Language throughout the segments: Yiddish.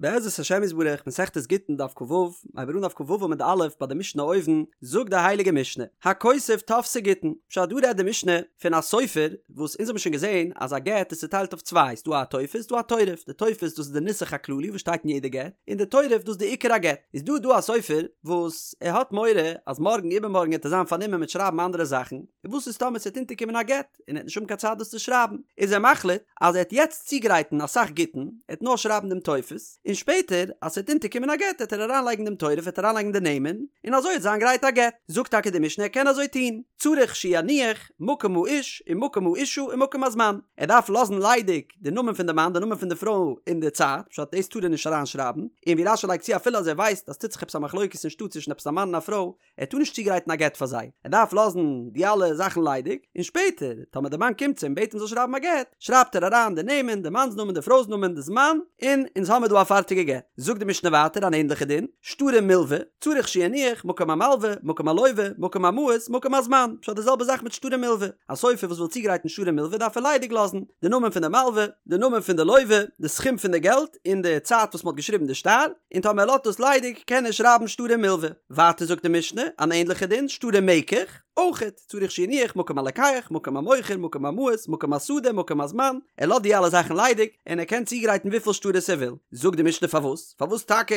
בעזרת השם יתברך, מסכת גיטין דף כ"ו, הייבן מיר אן דף כ"ו עמוד א' ביי די משנה אויבן, זאגט די הייליגע משנה, הכותב טופסי גיטין, פשט דא רעדט די משנה פון א סופר, וואס אונז האבן שוין געזען אז א גט איז צוטיילט אויף צוויי, ס'דא א טופס ס'דא א תורף, די טופס דאס איז די נוסח הכללי וואס שטייט אין יעדע גט, און די תורף דאס איז די עיקר הגט, איז דא דא א סופר וואס ער האט מורא אז מארגן איבערמארגן וועט ער זיין פארנומען מיט שרייבן אנדערע זאכן, און וואס איז טאמער ס'וועט אונטערקומען א גט? און ער וועט נישט האבן קיין צייט דאס צו שרייבן, איז ער מחליט אז ער וועט יעצט צוגרייטן אסאך גיטין, ער וועט נאר שרייבן דעם טופס, און שפעטער אז ס'וועט אונטערקומען א גט וועט ער אריינלייגן דעם תורף וועט ער אריינלייגן די נעמען, און אזוי וועט זיין גרייט א גט. זאגט טאקע די משנה ער קען אזוי טון, צריך שיניח מקום האיש ומקום האישה ומקום הזמן, ער דארף לאזן ליידיג די נאמען פון די מאן די נאמען פון די פרוי און די צייט, פשט דאס טאר ער נישט אריינשרייבן, און ווי רש"י לייגט צו אפילו אז ער ווייסט אז ס'טוט זיך עפעס א מחלוקת אין שטאט צווישן עפעס א מאן און א פרוי, ער טאר נישט צוגרייטן א גט פאר זיי, ער דארף לאזן די אלע זאכן ליידיג, און שפעטער טאמער די מאן קומט צו אים בעט אים זאל שרייבן א גט, שרייבט ער אריין די נעמען, די מאנ'ס נאמען, די פרוי'ס נאמען, די זמן, און אונז האמיר דא א פארטיגע גט. זאגט די משנה ווייטער אן ענדליכע דין, שטרי מלווה, צריך שיניח, מקום המלווה, מקום הלווה, מקום המעות, מקום הזמן, פשט די זעלבע זאך מיט שטרי מלווה, א סופר וואס וויל צוגרייטן שטרי מלווה דארף ער ליידיג לאזן, די נאמען פון די מלווה, די נאמען פון די לווה, די סכום פון די געלט, און די צייט וואס מען האט געשריבן די שטר, און טאמער ער לאזט דאס ליידיג קען ער שרייבן שטרי מלווה. ווייטער זאגט די משנה אן ענדליכע דין, שטרי מקח, אויכעט, צריך שיניח, מקום הלוקח, מקום המוכר, מקום המעות, מקום השדה, מקום הזמן, ער לאזט די אלע זאכן ליידיג, און ער קען צוגרייטן וויפיל שטרות ער וויל. זאגט די משנה פארוואס? פארוואס טאקע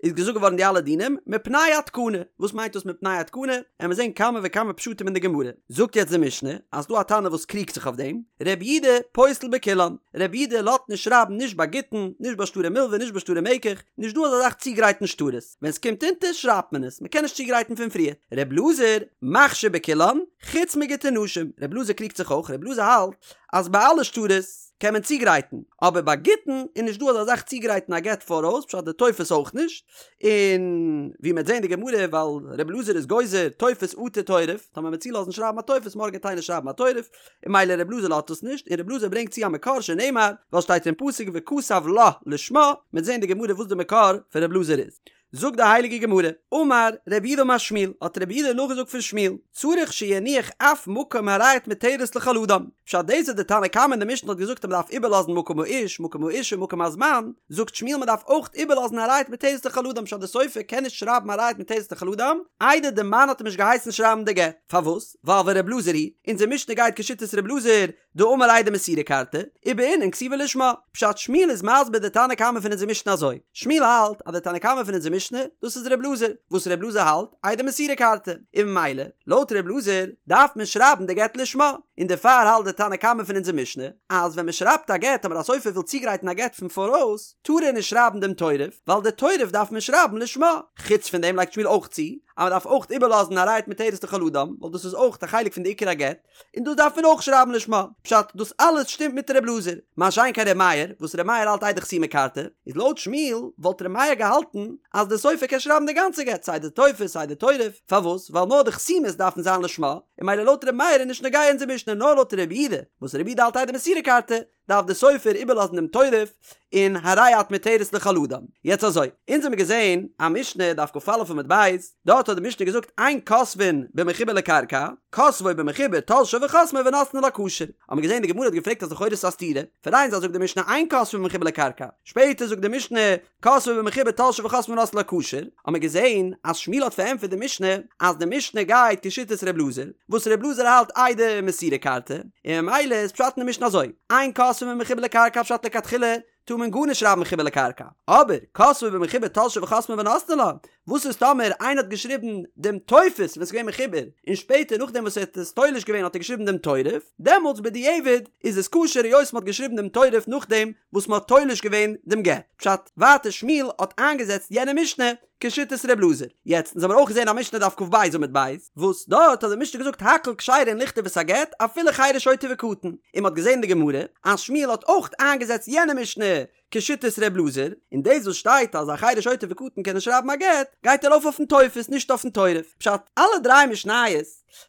איז געזאגט געווארן די אלע דינים? מפני התקנה. וואס מיינט דאס מפני התקנה? עמיר זען כמה וכמה פשטים אין די גמרא. זאגט יעצט די משנה אז ס'דא א תנא וואס קריגט זיך אויף דעם, רבי יהודה פוסל בכולן, רבי יהודה לאזט נישט שרייבן נישט ביי גיטין, נישט ביי שטרי מלווה, נישט ביי שטרי מקח, נישט דא אזא זאך צוגרייטן שטרות, ווען ס'קומט אונטער שרייבט מען עס, מ'קען נישט צוגרייטן פון פריער. ר' אלעזר מכשיר בכולן, חוץ מגיטי נשים, ר' אלעזר קריגט זיך אויך, ר' אלעזר האלט אז ביי אלע שטרות קען מען צוגרייטן, אבער ביי גיטין איז נישט דא אזא זאך צוגרייטן א גט פאראויס, פשט די טופס אויך נישט, און ווי מ'וועט זען די גמרא ווייל ר' אלעזר איז גוזר טופס אטו תורף, טאמער מ'וועט צולאזן שרייבן א טופס מארגן וועט איינער שרייבן א תורף, און ממילא ר' אלעזר לאזט עס נישט, און ר' אלעזר ברענגט צו א מקור שנאמר, ווייל שטייט אין פסוק וכתב לה לשמה, מ'וועט זען די גמרא וואס די מקור פון ר' אלעזר איז. זאגט די הייליגע גמרא, אמר רב יהודה אמר שמואל, האט רב יהודה נאכגעזאגט פון שמואל, צריך שיניח אף מקום הרי את מותרת לכל אדם, פשט דאס וואס די תנא קמא אין די משנה האט געזאגט אז מ'דארף איבערלאזן מקום האיש, מקום האישה, מקום הזמן, זאגט שמואל מ'דארף אויך איבערלאזן הרי את מותרת לכל אדם פשט די סופר קען נישט שרייבן הרי את מותרת לכל אדם איידער די מאן האט אים נישט געהייסן שרייבן די גט, פארוואס? ווייל ור' אלעזר היא, אונזער משנה גייט כשיטת ר' אלעזר, דאמר עדי מסירה כרתי, ובעינן כתיבה לשמה. פשט שמואל איז מסביר די תנא קמא פון אונזער משנה אזוי, שמואל האלט אז די תנא קמא פון אונזער משנה, דאס איז ר' אלעזר, וואס ר' אלעזר האלט, עדי מסירה כרתי, און ממילא, לויט ר' אלעזר, דארף מען שרייבן די גט לשמה, און דערפאר האלט די תנא קמא פון אונזער משנה, אז ווען מען שרייבט א גט אבער א סופר וויל צוגרייטן א גט פון פאראויס, טאר ער נישט שרייבן דעם תורף, ווייל די תורף דארף מען שרייבן לשמה. חוץ פון דעם לייגט שמואל אויך צו, אז מען דארף אויך איבערלאזן הרי את מותרת לכל אדם, ווייל דאס איז אויך א חלק פון די עיקר הגט, און דאס דארף מען אויך שרייבן לשמה. פשט, דאס אלעס שטימט מיט ר' אלעזר. מה שאין כן ר' מאיר, וואס ר' מאיר האלט עדי חתימה כרתי, איז לויט שמואל וואלט ר' מאיר געהאלטן אז די סופר קען שרייבן די גאנצע גט, סיי די טופס סיי די תורף, פארוואס? ווייל נאר די חתימות דארפן זיין לשמה, און ממילא לויט ר' מאיר איז נישט נוגע אונזער משנה, נאר לויט ר' יהודה, וואס ר' יהודה האלט עדי מסירה כרתי, דארף די סופר איבערלאזן דעם תורף און הרי את מותרת לכל אדם. יעצט אזוי, אונז האמיר געזען א משנה דף כ"א עמוד ב', דארט האט די משנה געזאגט אין כותבין במחובר לקרקע, כותבו במחובר תולשו וחותמו ונותנו לה כשר. האמיר געזען די גמרא האט געפרעגט אז לכאורה איז עס א סתירה, פון איין זייט זאגט די משנה אין כותבין במחובר לקרקע, שפעטער זאגט די משנה כותבו במחובר תולשו וחותמו ונותנו לה כשר, האמיר געזען אז שמואל האט פארענטפערט די משנה אז די משנה גייט כשיטת ר' אלעזר, וואס ר' אלעזר האלט עדי מסירה כרתי, און ממילא איז פשט אין די משנה אזוי, אין כותבין במחובר לקרקע פשט לכתחילה טאר מען גארנישט שרייבן מחובר לקרקע, אבער כותבו במחובר תולשו וחותמו ונותנו לה, וואס איז טאמער איינער האט געשריבן דעם טופס ווען ס'איז געווען מחובר, און שפעטער נאכדעם וואס ער האט עס תולש געווען האט ער געשריבן דעם תורף, דעמאלטס בדיעבד איז עס כשר היות מ'האט געשריבן דעם תורף נאכדעם וואס מ'האט תולש געווען דעם גט. פשט, ווייטער שמואל האט איינגעזעצט יענע משנה כשיטת ר' אלעזר. יעצט, אונז האמיר אויך געזען א משנה דף כ"ב עמוד ב', וואס דארט האט די משנה געזאגט הכל כשרין לכתוב את הגט אפילו חרש שוטה וקטן, און מ'האט געזען אין די גמרא אז שמואל האט אויך איינגעזעצט יענע משנה כשיטת ר' אלעזר, און דאס וואס שטייט אז א חרש שוטה וקטן קענען שרייבן א גט, גייט ארויף אויפן טופס נישט אויפן תורף. פשט, אלע דריי משניות,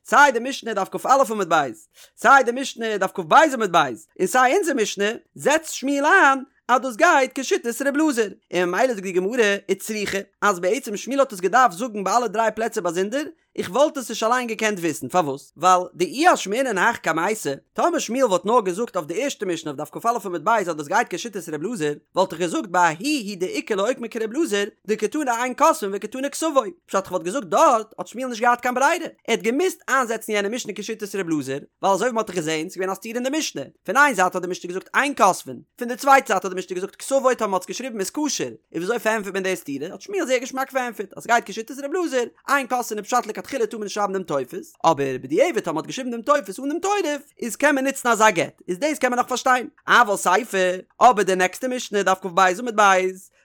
סיי די משנה דף כ"א עמוד ב', סיי די משנה דף כ"ב עמוד ב', און סיי אונזער משנה, זעצט שמואל איין אז דאס גייט כשיטת ר' אלעזר, און ממילא זאגט די גמרא, וצריכא, אז בעצם שמואל האט עס געדארפט זאגן ביי אלע דריי פלעצער באזונדער, איך וואלט עס נישט אליין געקענט וויסן, פארוואס? ווייל דאי אשמעינן הך קמייתא, טאמער שמואל וואלט נאר געזאגט אויף די ערשטע משנה אויף דף כ"א עמוד ב' אז דאס גייט כשיטת ר' אלעזר, וואלט איך געזאגט בההיא הוא דאיכא לאוקמי כר' אלעזר, דקתני אין כותבין וקתני כתבו, פשט כ'וואלט געזאגט דארט האט שמואל נישט געהאט קיין ברירה, ער האט געמוזט איינזעצן יענע משנה כשיטת ר' אלעזר, ווייל אזוי ווי מ'האט דאך געזען, ס'געווען א סתירה אין די משנה, פון איין זייט האט די משנה געזאגט אין כותבין, פון די צווייטע זייט האט די משנה געזאגט כתבו טאמער מ'האט עס געשריבן איז כשר, און וויאזוי פארענטפערט מען די סתירה, האט שמואל זייער געשמאק פארענטפערט אז ס'גייט כשיטת ר' אלעזר, אין כותבין איז פשט לכתחילה טאר מען נישט שרייבן דעם טופס, אבער בדיעבד טאמער מ'האט געשריבן דעם טופס אן דעם תורף, איז קען מען נוצן אזא גט, איז דאס קען מען נאך פארשטיין. אבל סיפא, אבער די נעקסטע משנה, דף כ"ב עמוד ב',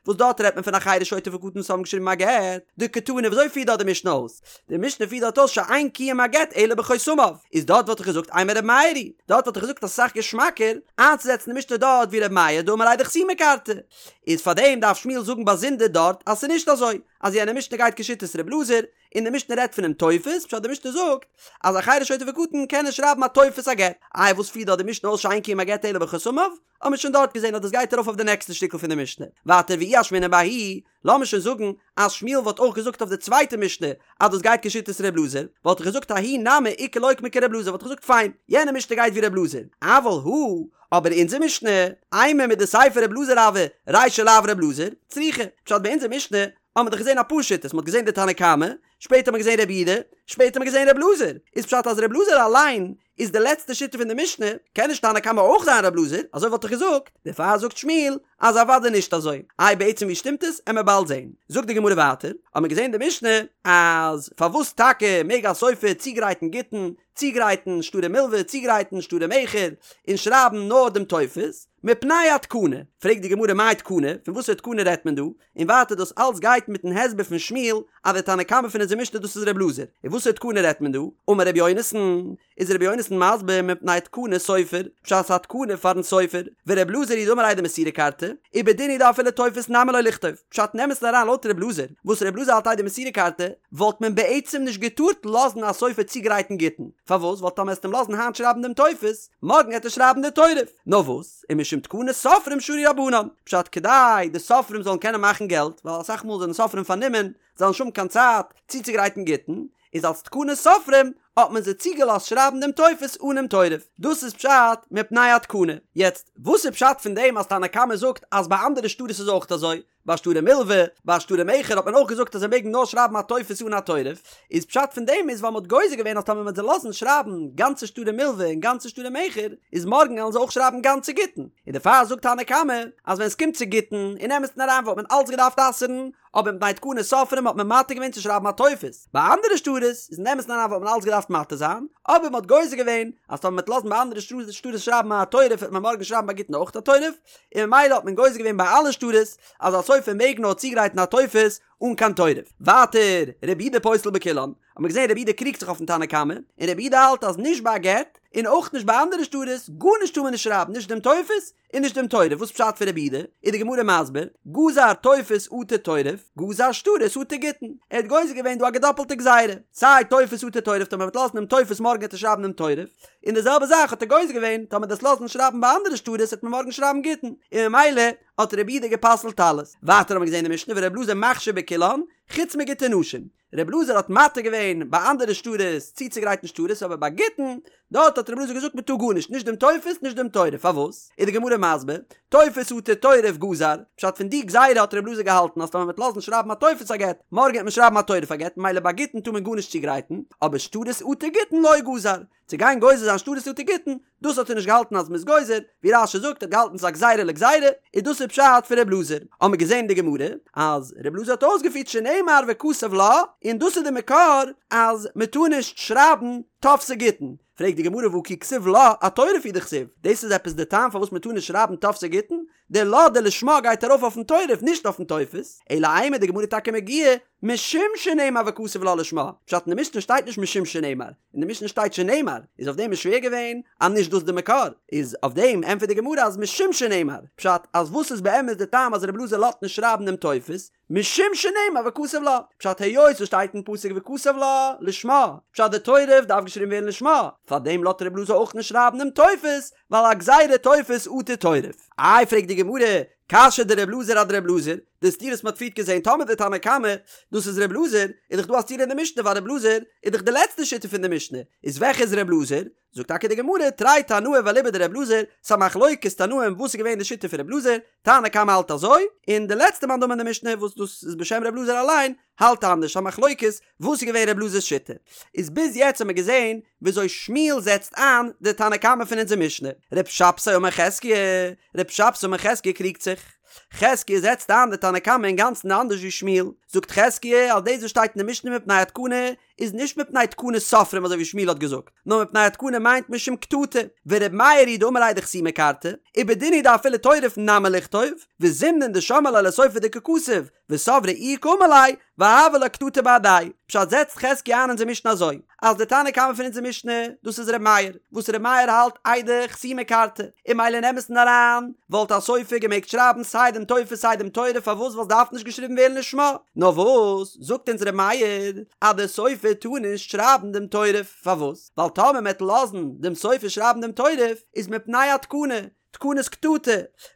וואס דארט רעדט מען פון א חרש שוטה וקטן וואס האבן געשריבן א גט, דקתני וויאזוי פירט דארט די משנה אויס? די משנה פירט דארט אויס שאין קיום הגט אלא בחותמיו, איז דארט וואלט איך געזאגט אימא ר' מאיר היא, דארט וואלט איך געזאגט אז ס'איז אסאך געשמאקער איינצוזעצן די משנה דארט ווי ר' מאיר דאמר עדי חתימה כרתי, איז פארדעם דארף שמואל זאגן באזונדער דארט אז ס'איז נישט אזוי אז יענע משנה גייט כשיטת ר' אלעזר, און די משנה רעדט פונעם טופס, פשט די משנה זאגט אז א חרש שוטה וקטן קענען שרייבן א טופס א גט, איי וואס פירט דארט די משנה אויס שאין קיום הגט אלא בחותמיו? האט מען שוין דארט געזען אז דאס גייט ארויף אויף די נעקסטע שטיקל פון די משנה. ווייטער ואי אשמעינן בההיא, לאמיר שוין זאגן אז שמואל וואלט אויך געזאגט אויף די צווייטע משנה אז דאס גייט כשיטת ר' אלעזר, וואלט איך געזאגט ההיא נמי איכא לאוקמי כר' אלעזר וואלט איך געזאגט פיין, יענע משנה גייט ווי ר' אלעזר, אבל הא, אבער אונזער משנה, אימא מדסיפא ר' אלעזר הוה, רישא לאו ר' אלעזר, צריכא, פשט ביי אונזער משנה האט מען דאך געזען אפאר שיטות, מען האט געזען די תנא קמא, שפעטער האט מען געזען רבי יהודה, שפעטער האט מען געזען ר' אלעזר, איז פשט אז ר' אלעזר אליין איז די לעצטע שיטה פון די משנה, קען נישט תנא קמא אויך זיין ר' אלעזר, אזוי וואלט איך געזאגט, דערפאר זאגט שמואל אז אוודאי נישט אזוי, איי בעצם ווי שטימט עס, עמער באלד זעהן. זאגט די גמרא ווייטער, האט מען געזען די משנה אז פארוואס טאקע מעג א סופר צוגרייטן גיטין, צוגרייטן שטרי מלווה, צוגרייטן שטרי מכר, און שרייבן נאר דעם טופס, מפני התקנה, פרעגט די גמרא מאי תקנה, פון וואסערע תקנה רעדט מען דא, און ווייטער דאס אלץ גייט מיטן הסבר פון שמואל אז די תנא קמא פון אונזער משנה דאס איז ר' אלעזר, און וואסערע תקנה רעדט מען דא? אמר ר' יונתן, איז ר' יונתן מסביר מפני תקנת סופר, פשט ס'א תקנה פארן סופר, ור' אלעזר היא דאמר עדי מסירה כרתי, ובדין הוא דאפילו טופס נמי לא ליכתוב, פשט אין אמת'ן אריין לויט ר' אלעזר, וואס ר' אלעזר האלט עדי מסירה כרתי, וואלט מען בעצם נישט געטארט לאזן א סופר צוגרייטן גיטין, פארוואס? ווייל טאמער עסט אים לאזן היינט שרייבן דעם טופס, מארגן עט ער שרייבן די תורף, נאר וואס? ומשום תקנת סופרים שרו רבנן, פשט כדי די סופרים זאלן קענען מאכן געלט, ווייל אסאך מאל זענען סופרים פארנומען, זיי וועלן נישט האבן קיין צייט צוצוגרייטן גיטין, איז אלס תקנת סופרים האט מען זיי צוגעלאזט שרייבן דעם טופס אנעם תורף, דאס איז פשט מפני התקנה. יעצט, וואס איז פשט פון דעם אז תנא קמא זאגט אז ביי אנדערע שטרות איז אויך אזוי? ביי שטרי מלווה, ביי שטרי מכר האט מען אויך געזאגט אז זיי מעגן נאר שרייבן א טופס אן א תורף, איז פשט פון דעם איז ווייל מ'האט גוזר געווען אז טאמער מ'וועט זיי לאזן שרייבן גאנצע שטרי מלווה און גאנצע שטרי מכר, איז מארגן וועלן זיי אויך שרייבן גאנצע גיטין, און דערפאר זאגט תנא קמא אז ווען ס'קומט צו גיטין, אין אמת'ן אריין וואלט מען אלץ געדארפט אסר'ן, אבער מפני תקנת סופרים האט מען מתיר געווען צו שרייבן א טופס, ביי אנדערע שטרות איז אין אמת'ן אריין וואלט מען אלץ געדארפט מתיר זיין, אבער מ'האט גוזר געווען אז טאמער מ'וועט לאזן ביי אנדערע שטרות שרייבן א תורף וועט מען מארגן שרייבן ביי גיטין אויך א תורף, און ממילא האט מען גוזר געווען ביי אלע שטרות אז א סופר מעג נאר צוגרייטן א טופס אן קיין תורף. ווייטער, רבי יהודה פוסל בכולן, האט מען געזען רבי יהודה קריגט זיך אויפן תנא קמא, און רבי יהודה האלט אז נישט ביי א גט, און אויך נישט ביי אנדערע שטרות, גארנישט טאר מען נישט שרייבן, נישט דעם טופס און נישט דעם תורף, וואס פשט פון רבי יהודה? איז די גמרא מסביר, גזר טופס אטו תורף, גזר שטרות אטו גיטין, ער האט גוזר געווען דא א געדאפלטע גזירה, סיי טופס אטו תורף טאמער מ'וועט לאזן דעם טופס מארגן וועט ער שרייבן דעם תורף, און די זעלבע זאך האט ער גוזר געווען, טאמער דו'סט לאזן שרייבן ביי אנדערע שטרות וועט מען מארגן שרייבן גיטין, און ממילא האט רבי יהודה גע'פסל'ט אלעס. ווייטער האבן מיר געזען אין משנה ור' אלעזר מכשיר בכולן, חוץ מגיטי נשים. ר' אלעזר האט מתיר געווען ביי אנדערע שטרות צוצוגרייטן שטרות אבער ביי גיטין, דארט האט ר' אלעזר געזאגט מען טאר גארנישט, נישט דעם טופס נישט דעם תורף, פארוואס? איז די גמרא מסביר, טופס אטו תורף גזר, פשט פון די גזירה האט ר' אלעזר געהאלטן אז טאמער מען וועט לאזן שרייבן א טופס א גט, מארגן וועט מען שרייבן א תורף א גט, ממילא ביי גיטין טאר מען גארנישט צוגרייטן, אבער שטרות אטו גיטין לא גזר, צו גיין גוזר זיין שטרות אטו גיטין, דאס האט ער נישט געהאלטן אז מ'איז גוזר, ווי רש"י זאגט ער האט געהאלטן ס'איז א גזירה לגזירה, און דאס איז פשט פון ר' אלעזר. האמיר געזען אין די גמרא אז ר' אלעזר האט אויסגעפירט שנאמר וכתב לה, און דאס איז די מקור אז מ'טאר נישט שרייבן טופסי גיטין. פרעגט די גמרא והא כי כתיב לה אתורף הוא דכתיב, דאס איז עפעס די טעם פארוואס מ'טאר נישט שרייבן טופסי גיטין? די לה די לשמה גייט ארויף אויפן תורף נישט אויפן טופס, אלא אימא די גמרא טאקע מגיה משום שנאמר וכתב לה לשמה, פשט אין די משנה שטייט נישט משום שנאמר, אין די משנה שטייט שנאמר, איז אויף דעם איז שווער געווען אז נישט דאס די מקור, איז אויף דעם ענטפערט די גמרא אז משום שנאמר, פשט אז וואס איז באמת די טעם אז רבי אלעזר לאזט נישט שרייבן דעם טופס, משום שנאמר וכתב לה, פשט היות עס שטייט אין פסוק וכתב לה לשמה, פשט די תורף דארף געשריבן ווערן לשמה, פארדעם לאזט רבי אלעזר אויך נישט שרייבן דעם טופס, ווייל א גזירה טופס אטו תורף. איי פרעגט די גמרא, קשיא דר' אלעזר אדר' אלעזר, די סתירה וואס מ'האט פריערט געזען טאמער די תנא קמא דאס איז ר' אלעזר, איז דאך דא א סתירה אין די משנה ווייל ר' אלעזר איז דאך די לעצטע שיטה פון די משנה, איז וועלכע איז ר' אלעזר? זאגט טאקע די גמרא, תרי תנאי ואליבא דר' אלעזר, ס'א מחלוקת תנאים וואס איז געווען די שיטה פון ר' אלעזר, תנא קמא האלט אזוי, און די לעצטע מאן דאמר אין די משנה וואס דאס איז בשם ר' אלעזר אליין, האלט אנדערש, א מחלוקת וואס איז געווען ר' אלעזר'ס שיטה. איז ביז יעצט האט מען געזען וויאזוי שמואל זעצט איין די תנא קמא פון אונזער משנה. ר' שבתאי אמר חזקיה, ר' שבתאי אמר חזקיה קריגט זיך. חזקיה זעצט איין די תנא קמא אינגאנצן אנדערש ווי שמואל. זאגט חזקיה אז דאס וואס שטייט אין די משנה מפני התקנה איז נישט מפני תקנת סופרים אזוי ווי שמואל האט געזאגט, נאר מפני התקנה מיינט משום קטטה, ור' מאיר היא דאמר עדי חתימה כרתי, ובדין הוא דאפילו תורף נמי ליכתוב, וזימנין דשמעה ליה לסופר דקא כתיב, וסברה איהו קאמר ליה, והוה לה קטטה בהדיה. פשט זעצט חזקיה איין אונזער משנה אזוי, אז די תנא קמא פון אונזער משנה, דאס איז ר' מאיר, וואס ר' מאיר האלט עדי חתימה כרתי, און ממילא אין אמת'ן אריין, וואלט א סופר געמעגט שרייבן סיי דעם טופס סיי דעם תורף פארוואס ווייל ס'דארף נישט געשריבן ווערן לשמה, נאר וואס זאגט אונז ר' מאיר אז דער סופר טאר נישט שרייבן דעם תורף, פארוואס? ווייל טאמער מ'עט לאזן דעם סופר שרייבן דעם תורף איז מפני התקנה, תקנת קטטה,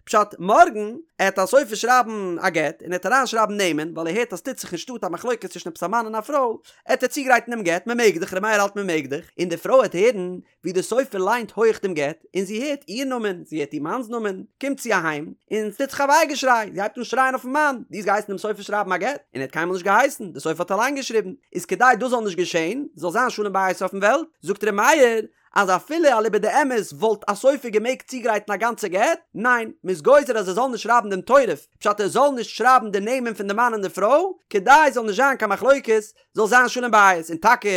פשט מארגן עט א סופר שרייבן א גט און עט אריין שרייבן נעמען ווייל ער הערט אז ס'טוט זיך אין שטאט א מחלוקת צווישן עפעס א מאן און א פרוי, עט ער צוגרייטן דעם גט, מ'מעג דאך, ר' מאיר האלט מ'מעג דאך, און די פרוי עט הערן ווי דער סופר ליינט הויך דעם גט, און זי הערט איר נאמען, זי הערט איר מאנ'ס נאמען, קומט זי אהיים, און ס'טוט זיך א וויי געשריי, זי הייבט אן שרייען אויפ'ן מאן, דו האסט געהייסן דעם סופר שרייבן א גט? און ער האט קיינמאל נישט געהייסן, דער סופר האט אליין געשריבן, איז כדי דאס זאל נישט געשען, זאל זיין שלום בית אויפ'ן וועלט, זאגט ר' מאיר, אז אפילו אליבא דאמת וואלט א סופר געמעגט צוגרייטן א גאנצע גט, ניין, מ'איז גוזר אז ער זאל נישט שרייבן דעם תורף, פשט ער זאל נישט שרייבן די נעמען פון די מאן און די פרוי, כדי ס'זאל נישט זיין קיין מחלוקת, זאל זיין שלום בית, און טאקע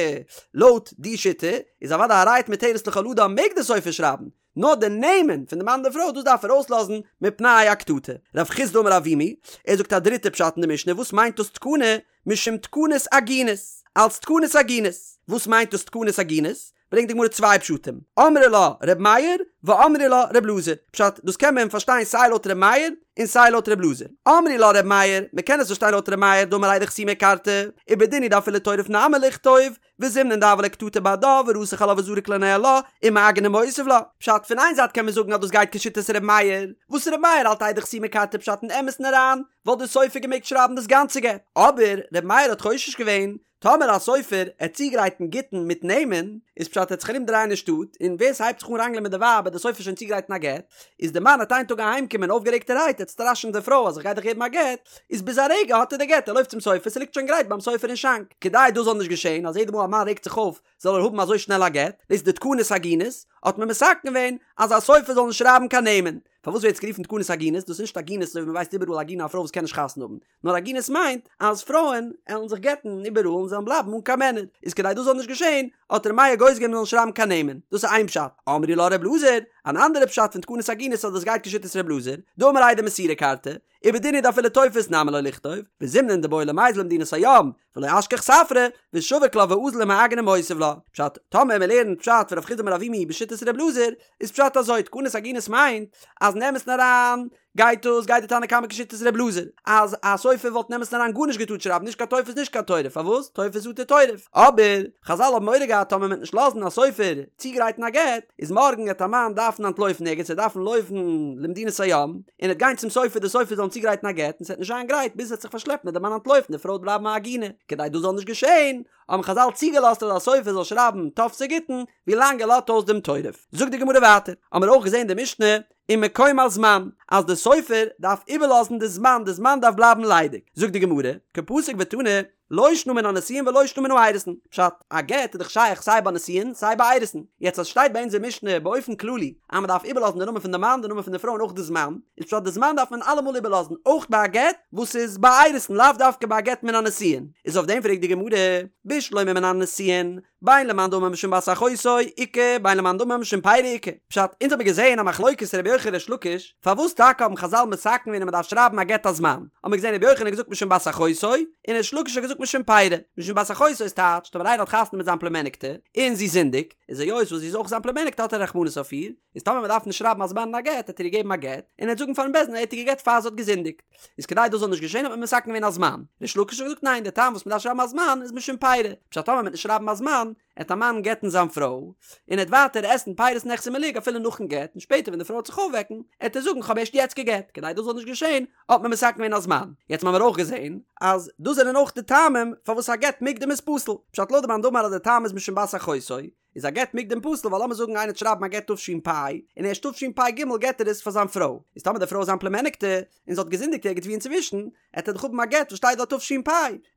לויט די שיטה איז אוודאי הרי את מותרת לכל אדם מעג די סופר שרייבן, נאר די נעמען פון די מאן און די פרוי דאס דארף ער אויסלאזן מפני הקטטה. רב חסדא אמר אבימי, ער זאגט א דריטע פשט אין די משנה, וואס מיינט דאס תקנה? משום תקנת עגונות, אלס תקנת עגונות. וואס מיינט דאס תקנת עגונות? ברענגט די גמרא צוויי פשטים, אמרי לה ר' מאיר ואמרי לה ר' אלעזר, פשט, דאס קען מען פארשטיין סיי לויט ר' מאיר און סיי לויט ר' אלעזר. אמרי לה ר' מאיר, מען קען עס פארשטיין לויט ר' מאיר דאמר עדי חתימה כרתי, ובדין הוא דאפילו תורף נמי ליכתוב, וזימנין דהוה ליה קטטה בהדה ורתח עלה וזריק לה ניהלה, ומעגן ומותיב לה. פשט, פון איין זייט קען מען זאגן אז דאס גייט כשיטת ר' מאיר, וואס ר' מאיר האלט עדי חתימה כרתי פשט אין אמת'ן אריין, וואלט דער סופר געמעגט שרייבן דאס גאנצע גט. אבער ר' מאיר האט חושש געווען טאמער א סופר עט צוגרייטן גיטין מיט נעמען, איז פשט ער עט זיך ארום דרייען אין שטאט, און ווער ס'הייבט זיך אן ראנגלען מיט די ווייב עט די סופר שוין צוגרייטן א גט, איז די מאן עט איין טאג אהיים קומען אויפגערעגטערהייט עט סטראשען די פרוי אז איך גיי דיך געבן א גט, איז ביז א רגע האט ער די גט ער לויפט צום סופר ס'ליגט שוין גרייט ביים סופר אין שאנק, כדי דאס זאל נישט געשען אז יעדע מאל א מאן רעגט זיך אויף זאל ער האבן אזוי שנעל א גט, דאס איז די תקנת עגונות, האט מען מתקן געווען אז א סופר זאל נישט שרייבן קיין נעמען. פארוואס ווערט עס גערופן תקנת עגונות? דאס איז נישט עגונות אזוי ווי מ'ווייסט איבעראל עגונה א פרוי וואס קען נישט חתונה האבן, נאר עגונות מיינט אז פרויען עלן זיך גט'ן איבעראל און זיי וועלן בלייבן אן קיין מענער, איז כדי דאס זאל נישט געשען האט ר' מאיר גוזר געווען מ'זאל נישט שרייבן קיין נעמען, דאס איז איין פשט. אמרי לה ר' אלעזר, אן אנדערע פשט פון תקנת עגונות אז דאס גייט כשיטת ר' אלעזר, דאמר עדי מסירה כרתי, ובדין הוא דאפילו טופס נמי לא ליכתוב, וזימנין דבעי למיזל למדינת הים, ולא אשכח ספרא, ושביק לה ואזיל ומעגן ומותיב לה. פשט, טאמער מ'לערנט פשט פון רב חסדא אמר אבימי בשיטת ר' אלעזר, איז פשט אזוי, תקנת עגונות מיינט אז אין אמת'ן אריין גייט דאס גייט די תנא קמא כשיטת ר' אלעזר אז א סופר וואלט אין אמת'ן אריין גארנישט געטארט שרייבן נישט קיין טופס נישט קיין תורף פארוואס טופס אטו תורף אבער חזל האבן מורא געהאט טאמער מ'וועט נישט לאזן א סופר צוגרייטן א גט איז מארגן עט א מאן דארפן אנטלויפן ערגעץ ער דארפן לויפן למדינת הים און עט גיין צום סופר די סופר זאל אים צוגרייטן א גט און ס'עט נישט זיין גרייט ביז עס עט זיך פארשלעפן עט די מאן אנטלויפן די פרוי עט בלייבן א עגונה כדי דאס זאל נישט געשען האבן חזל צוגעלאזט אז א סופר זאל שרייבן טופסי גיטין ווילאנג ער לאזט אויס דעם תורף. זאגט די גמרא ווייטער, האמיר אויך געזען די משנה ומקום הזמן, אז די סופר דארף איבערלאזן די זמן, די זמן דארף בלייבן ליידיג. זאגט די גמרא, קא פסיק ותני, לא שנא מן הנישואין ולא שנא מן האירוסין. פשט, א גט איז דאך שייך סיי ביי נישואין סיי ביי אירוסין. יעצט אז שטייט ביי אונזער משנה באופן כללי אז מען דארף איבערלאזן די נאמען פון די מאן, די נאמען פון די פרוי און אויך די זמן, איז פשט די זמן דארף מען אלעמאל איבערלאזן, אויך ביי א גט וואס איז ביי אירוסין, לאו דווקא ביי א גט מן הנישואין. איז אויף דעם פרעגט די גמרא, בשלמא מן הנישואין, בין למאן דאמר משום בת אחותו איכא בין למאן דאמר משום פירי איכא. פשט, אונז האבן געזעהן א מחלוקת רבי יוחנן ריש לקיש, פארוואס טאקע האבן חזל מתקן געווען אז מען דארף שרייבן א גט א זמן? האבן מיר געזעהן רבי יוחנן האט געזאגט משום בת אחותו, און ריש לקיש האט געזאגט משום פירי. משום בת אחותו איז טייטש, טאמער איינער האט חתונה מיט זיין פלומעניקטע, און זי זינדיגט, איז היות וואס זי איז אויך זיין פלומעניקטע האט ער רחמנות אויף איר, איז טאמער מען דארף נישט שרייבן א זמן אין א גט, העט ער איר געבן א גט, און ער העט זאגן פארן בית דין ער האט איר געגט פאר זי האט געזינדיגט. איז כדי דאס זאל נישט געשען האט מען מתקן געווען א זמן. ריש לקיש האט געזאגט ניין, דער טעם וואס מען דארף שרייבן א זמן איז משום פירי. פשט טאמער מען וועט נישט שרייבן א זמן, עט א מאן גט'ן זיין פרוי, און ער עט ווייטער עסן פירות נכסי מלוג אפילו נאכן גט, און שפעטער ווען די פרוי עט זיך אויפוועקן, עט ער זאגן כ'האב ערשט יעצט גע'גט, כדי דאס זאל נישט געשען, האט מען מתקן געווען א זמן. יעצט האמיר אויך געזען אז דאס זענען אויך די טעמים פארוואס א גט מוקדם איז פסול. פשט לויט די מאן דאמר אז די טעם איז משום בת אחותו, איז א גט מוקדם פסול ווייל לאמיר זאגן איינער עט שרייבן א גט תש"פ און ערשט תשפ"ג געט ער עס פאר זיין פרוי, איז טאמער די פרוי איז זיין פלומעניקטע און זי האט געזינדיגט ערגעץ ווי אינצווישן, עט ער דאך האבן א גט וואס שטייט דארט תש"פ,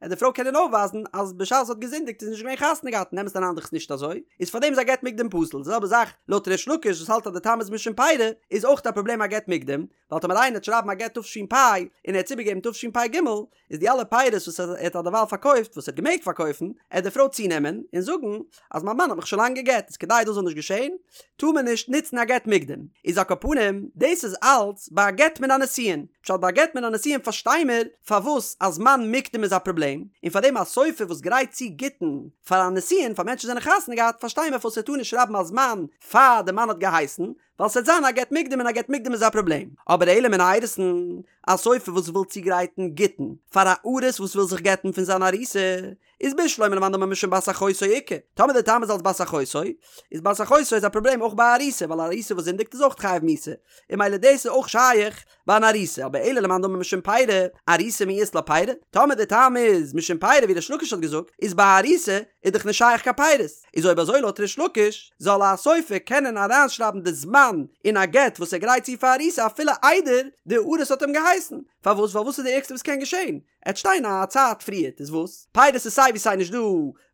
עט די פרוי קענען אויפווייזן אז בשעת זי האט געזינדיגט איז נישט געווען חתונה געהאט און אין אמת'ן אריין דאך נישט אזוי, איז פארדעם איז א גט מוקדם פסול, די זעלבע זאך לויט ריש לקיש וואס האלט אז די טעם איז משום פירי, איז אויך א פראבלעם א גט מוקדם, ווייל טאמער איינער עט שרייבן א גט תש"פ און ער האט עס איבערגעגעבן תשפ"ג, איז די אלע פירות וואס ער האט אדערווייל פארקויפט, וואס ער האט געמעגט פארקויפן, עט די פרוי צונעמען און זאגן אז מיין מאן האט מיך שוין לאנג גע'גט, איז כדי דאס זאל נישט געשען, טאר מען נישט נוצן א גט מוקדם. איז על כל פנים, דאס איז אלץ ביי א גט מן הנישואין. פשט ביי א גט מן הנישואין פארשטיי מיר פארוואס א זמן מוקדם איז א פראבלעם, און פארדעם א סופר וואס גרייט צו גיטין פאר א נישואין פאר מענטשן וואס זענען חתונה געהאט פארשטיי מיר פארוואס ער טאר נישט שרייבן א זמן פאר די מאן האט געהייסן, ווייל ס'וועט זיין א גט מוקדם און א גט מוקדם איז א פראבלעם. אבער אלא מן האירוסין, א סופר וואס וויל צוגרייטן גיטין פאר א ארוס וואס וויל זיך גט'ן פון זיין ארוסה, איז בשלמא למאן דאמר משום בת אחותו איכא, טאמער די טעם איז אלס בת אחותו, איז בת אחותו איז א פראבלעם אויך ביי א ארוסה, ווייל א ארוסה וואס זינדיגט איז אויך חייב מיתה, און ממילא דאס איז אויך שייך ביי אן ארוסה, אבער אלא למאן דאמר משום פירי, ארוסה מי אית לה פירי, טאמער די טעם איז משום פירי ווי ריש לקיש האט געזאגט, איז ביי א ארוסה איז דאך נישט שייך קיין פירות, איז אויב אזוי לויט ריש לקיש, זאל א סופר קענען אריינשרייבן די זמן אין א גט וואס ער גרייט צו פאר ארוסה אפילו איידער די ארוס האט אים געהייסן, פארוואס? ווייל וואס איז די ערגסטע וואס קען געשען? עט שטיין א צייט פריערט איז וואס? פירות איז סיי ווי סיי נישט דא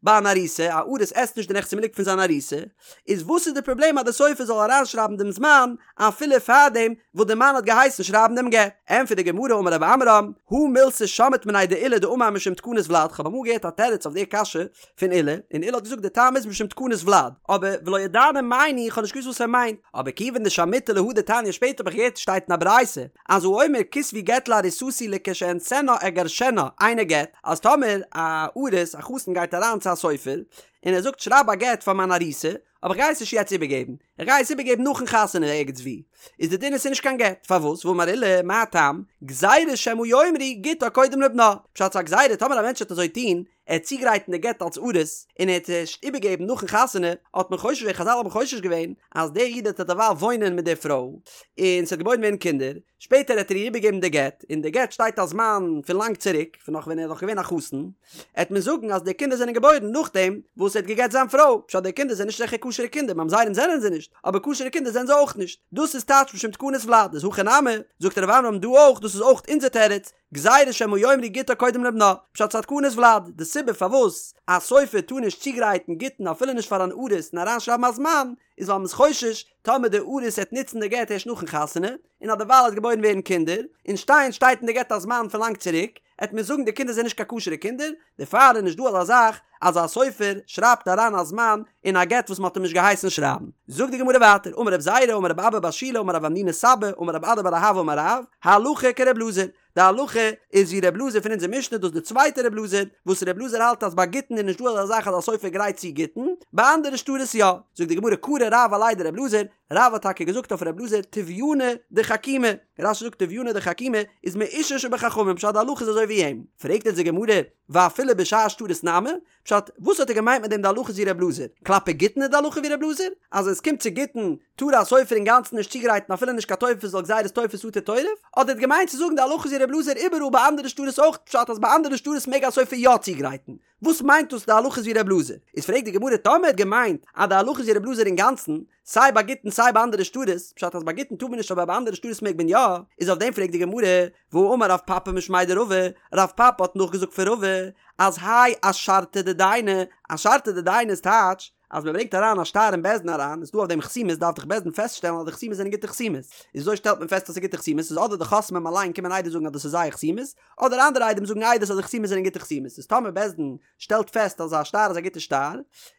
ביי אן ארוסה, א ארוס עסט נישט די נכסי מלוג פון זיין ארוסה, איז וואס איז די פראבלעם אז די סופר זאל אריינשרייבן דעם זמן אפילו פארדעם וואס די מאן האט געהייסן שרייבן דעם גט? ענטפערט די גמרא אמר רב עמרם, הא מילתא שמעית מיניה דעולא דאמר משום תקנת ולד, כ'האב אמאל געהערט א תירוץ אויף די קשיא פון עולא, און עולא האט געזאגט די טעם איז משום תקנת ולד, אבער ולא ידענא מאי ניהו איך האב נישט געוואוסט וואס ער מיינט, אבער כיוון דשמעיתא להא דתניא שפעטער האב איך געהערט שטייט אין א ברייתא אז האומר כתבו גט לארוסתי לכשאכנסנה אגרשנה אינו גט, אז טאמער א ארוס א חתן גייט אריין צו א סופר און ער זאגט שרייב א גט פאר מיין ארוסה, אבער איך גיי עס נישט יעצט איבערגעבן, איך גיי עס איבערגעבן נאכן חתונה ערגעץ וואו, איז די דין עס איז נישט קיין גט, פארוואס? ואמר עולא, מה טעם? גזירה שמא יאמרו גיטה קודם לבנה, פשט ס'איז א גזירה טאמער א מענטש וועט אזוי טון, ער וועט צוגרייטן די גט אלס ארוס, און ער וועט עס ערשט איבערגעבן נאכן חתונה, האט מען חושש געווען, חזל האבן חושש געווען, אז דער איד וועט דערווייל וואוינען מיט דער פרוי, און ס'וועט געבוירן ווערן קינדער, שפעטער העט ער איר איבערגעבן די גט, אין די גט שטייט א זמן פון לאנג צוריק, פון נאך ווען ער איז נאך געווען א חתן, העט מען זאגן אז די קינדער זענען געבוירן נאכדעם וואס ער האט גע'גט זיין פרוי, פשט די קינדער זענען נישט זיכער כשר'ע קינדער, ממזרים זענען זיי נישט, אבער כשר'ע קינדער זענען זיי אויך נישט, דאס איז טייטש משום תקנת ולד, איז הכא נמי, זאגט רב עמרם דא אויך, דאס איז אויך אונזער תירוץ, גזירה שמא יאמרו גיטה קודם לבנה, פשט ס'איז א תקנת ולד, די סיבה פארוואס א סופר טאר נישט צוגרייטן גיטין אפילו נישט פאר אן ארוס און אריינשרייבן א זמן, איז ווייל מ'איז חושש טאמער די ארוס העט נוצן די גט ערשט נאכן חתונה, און אז דערווייל העט געבוירן ווערן קינדער, און שטיין שטייט אין די גט א זמן פון לאנג צוריק, העט מען זאגן די קינדער זענען נישט קיין כשר'ע קינדער, דערפאר איז נישט דא אזא זאך אז א סופר שרייבט אריין א זמן אין א גט וואס מ'האט אים נישט געהייסן שרייבן. זאגט די גמרא ווייטער, אמר רב זירא אמר רב אבא בר שילא אמר רב המנונא סבא אמר רב אדא בר אהבה אמר רב, הלכה כר' אלעזר, די הלכה איז ווי ר' אלעזר פון אונזער משנה, דאס איז די צווייטע ר' אלעזר, וואס ר' אלעזר האלט אז ביי גיטין איז נישט דא אזא זאך אז א סופר גרייט צו גיטין, ביי אנדערע שטרות יא. זאגט די גמרא קרי רב עליה דר' אלעזר, רב האט טאקע געזאגט אויף ר' אלעזר טביונא דחכימי, רש"י זאגט טביונא דחכימי איז מאושר שבחכמים פשט די הלכה איז אזוי ווי אים, פרעגט אונז די גמרא ואפילו בשאר שטרות נמי, פשט, וואס האט ער געמיינט מיט דעם די הלכה איז ווי ר' אלעזר? כלפי גיטין איז די הלכה ווי ר' אלעזר? אז ווען עס קומט צו גיטין טאר א סופר אינגאנצן נישט צוגרייטן אפילו נישט קיין טופס ווייל גזירת תופס אטו תורף? אדער האט געמיינט צו זאגן די הלכה איז ווי ר' אלעזר איבעראל ביי אנדערע שטרות אויך פשט אז ביי אנדערע שטרות מעג א סופר יא צוגרייטן? וואס מיינט דאס די הלכה איז ווי ר' אלעזר? איז פרעגט די גמרא טאמער ער האט געמיינט אז די הלכה איז ווי ר' אלעזר אינגאנצן סיי ביי גיטין סיי ביי אנדערע שטרות, פשט אז ביי גיטין טאר מען נישט אבער ביי אנדערע שטרות מעג מען יא, איז אויף דעם פרעגט די גמרא, והאמר רב פפא משמיה דרבא, רב פפא האט נאכגעזאגט פון רבא, אז האי אשרתא דדייני, אשרתא דדייני איז טייטש, אז מען ברענגט אריין א שטר אין בית דין אריין, איז דא אויף דעם חתימות דארף דאך בית דין פעסטשטעלן אז די חתימות זענען גוטע חתימות, איז וויאזוי שטעלט מען פעסט אז ס'איז גוטע חתימות, איז אדער די חותמים אליין קומען עדות זאגן אז דאס איז זייער חתימות, אדער אנדערע עדים זאגן עדות אז די חתימות זענען גוטע חתימות, איז טאמער בית דין שטעלט פעסט אז א שטר איז א גוטע שטר,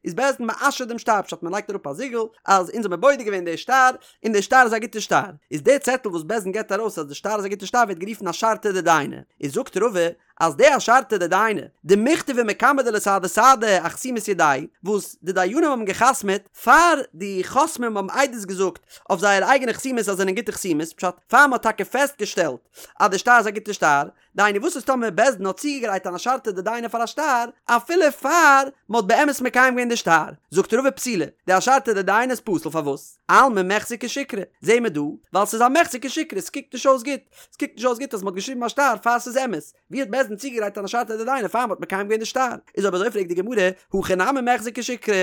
איז בית דין מאשר דעם שטר, פשט מען לייגט אראפ א זיגל אז אונז האמיר בודק געווען די שטר, און די שטר איז א גוטע שטר, איז די צעטל וואס בית דין געבט ארויס אז די שטר איז א גוטע שטר ווערט גערופן אשרתא דדייני, איז זאגט רבא אז די אשרתא דדייני, דמיכתבי מקמי דלסהדי סהדי אחתימות ידייהו, וואס די דיינים האבן גע'חתמ'עט פאר די חותמים האבן עדות געזאגט אויף זייער אייגענע חתימות אז זענען גוטע חתימות, פשט פאר מען האט טאקע פעסט געשטעלט אז די שטר איז א גוטע שטר. דהיינו וואס איז טאמער בית דין האט צוגעגרייט אן אשרתא דדייני פאר א שטר אפילו פאר מען האט באמת מקיים געווען די שטר, זאגט רבא פסולה, די אשרתא דדייני איז פסול פארוואס? אלמא מיחזי כשיקרא, זעהן מיר דא, ווייל ס'איז א מיחזי כשיקרא, ס'קוקט נישט אויס גוט, ס'קוקט נישט אויס גוט אז מ'האט געשריבן א שטר פאר ס'איז אמת, ווי האט בית דין צוגעגרייט אן אשרתא דדייני פאר מ'האט מקיים געווען די שטר? איז אויב אזוי פרעגט די גמרא, הכא נמי מיחזי כשיקרא,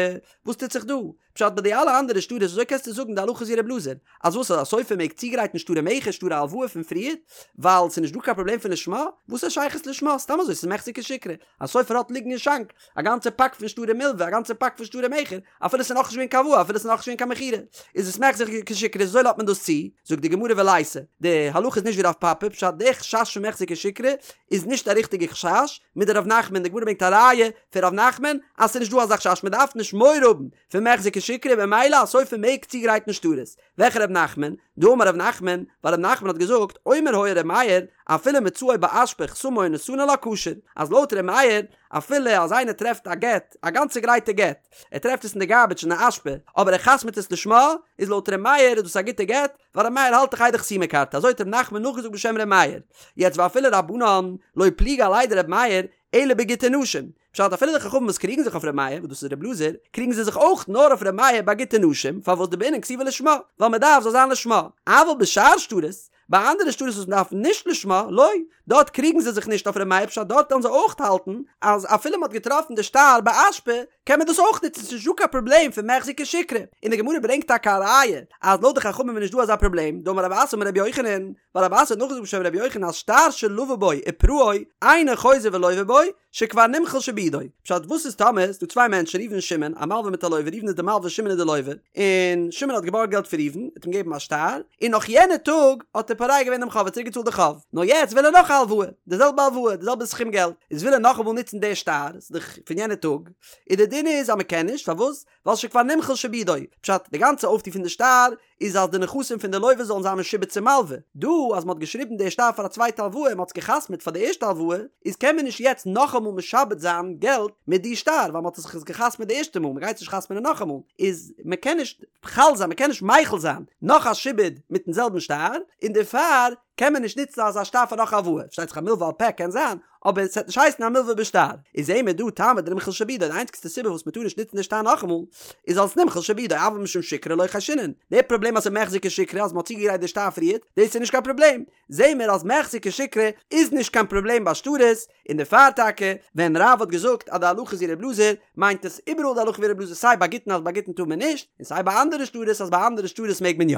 וואס טוט זיך דא? פשט ביי די אלע אנדערע שטרות וויאזוי קענסטו זאגן די הלכה איז ווי ר' אלעזר? אז וואס אז א סופר מעג צוגרייטן שטרי מכר שטרי הלוואה פון פריערט ווייל ס'איז נישט דא קיין פראבלעם פון לשמה? וואס א שייכות לשמה? סתם אזוי ס'איז מיחזי כשיקרא. א סופר האט ליגן אין שאנק א גאנצע פאק פון שטרי מלווה א גאנצע פאק פון שטרי מכר אפילו ס'איז נאכנישט געווען קיין הלוואה אפילו ס'איז נאכנישט געווען קיין מכירה איז עס מיחזי כשיקרא וויאזוי לאזט מען דאס צו? זאגט די גמרא וליתא די הלכה איז נישט ווי רב פפא פשט די חשש פון מיחזי כשיקרא איז נישט א ריכטיגע חשש מדרב נחמן די גמרא ברענגט א ראיה פון רב נחמן אז ס'איז נישט דא אזא חשש מ'דארף נישט מורא האבן פון מיחזי כשיקרא ממילא א סופר מעג צוגרייטן שטרות. וועלכע רב נחמן? דאמר רב נחמן, ווייל רב נחמן האט געזאגט, אומר היה ר' מאיר, אפילו מצאו באשפה חתמו ונתנו לה כשר, אז לויט ר' מאיר, אפילו אז איינער טרעפט א גט, א גאנצע גרייטע גט, ער טרעפט עס אין די גארביטש אין די אשפה, אבער ער חתמ'ט עס לשמה, איז לויט ר' מאיר איז דאס א גוטע גט, ווייל ר' מאיר האלט דאך איידי חתימה כרתי, אזוי האט רב נחמן נאכגעזאגט בשם ר' מאיר. יעצט ואפילו רבנן, לא פליגי עליה דר' מאיר, אלא בגיטי נשים. פשט אפילו די חכמים וואס קריגן זיך אויף ר' מאיר, וואס דאס איז ר' אלעזר, קריגן זיי זיך אויך נאר אויף ר' מאיר ביי גיטי נשים, פארוואס דבעינן כתיבה לשמה, ווייל מען דארף זאל זיין לשמה. אבל בשאר שטרות, ביי אנדערע שטרות וואס מען דארף נישט לשמה, לא, דארט קריגן זיי זיך נישט אויף ר' מאיר פשט דארט וועלן זיי אויך האלטן אז אפילו מען האט געטראפן די שטר באשפה קען מען דאס אויך נוצן ס'איז נישט דא קיין פראבלעם פון מיחזי כשיקרא. און די גמרא ברענגט טאקע א ראיה אז לויט די חכמים איז נישט דא אזא פראבלעם, דאמר רב אסי אמר רבי יוחנן, ווייל רב אסי האט נאכגעזאגט בשם רבי יוחנן אז שטר שלוה בו ופרעו אינו חוזר ולוה בו שכבר נמחל שעבודו. פשט וואס איז טאמער ס'דא צוויי מענטשן ראובן און שמעון א מלווה מיט א לוה ראובן איז די מלווה שמעון איז די לוה און שמעון האט געבארגט געלט פון ראובן האט אים געגעבן א שטר און נאך יענע טאג האט ער פורע געווען דעם חוב האט צוריק געצאלט די חוב נאר יעצט וויל ער נאך א הלוואה די זעלבע הלוואה די זעלבע סכום געלט איז וויל ער נאכאמאל נוצן די שטר ס'איז דאך פון יענע טאג און די דין איז אז מ'קען נישט פארוואס ווייל שכבר נמחל שעבודו פשט די גאנצע אויפטו פון די שטר איז אז די נכסים פון די לוה זאלן זיין משועבד צום מלווה. דא אז מ'האט געשריבן די שטר פאר א צווייטע הלוואה און מ'האט עס גע'חתמ'עט פאר די ערשטע הלוואה, איז קען מען נישט יעצט נאכאמאל משעבד זיין געלט מיט די שטר ווייל מ'האט עס זיך גע'חתמ'עט די ערשטע מאל, מ'גייט עס נישט חתמ'נען נאכאמאל, איז מ'קען נישט חל זיין, מ'קען נישט מחיל זיין נאך א שעבוד מיטן זעלבן שטר, און דערפאר קען מען נישט נוצן אזא שטר פאר נאך א הלוואה, פארשטייט זיך א מלווה על פה קען זיין, אבער עס וועט נישט הייסן א מלווה בשטר. איז זעהן מיר דא טעמא דנמחל שעבודו, די איינציגסטע סיבה וואס מען טאר נישט נוצן די שטר נאכאמאל, איז אלס נמחל שעבודו, אבל משום שיקרא לא חיישינן. די פראבלעם אז ס'איז מיחזי כשיקרא אז מען האט צוגעגרייט די שטר פריערט, דאס איז נישט קיין פראבלעם. זעהן מיר אז מיחזי כשיקרא איז נישט קיין פראבלעם ביי שטרות, און דערפאר טאקע ווען רב האט געזאגט אז די הלכה איז ווי ר' אלעזר, מיינט עס איבעראל די הלכה ווי ר' אלעזר סיי ביי גיטין אז ביי גיטין טאר מען נישט, און סיי ביי אנדערע שטרות אז ביי אנדערע שטרות מעג מען יא.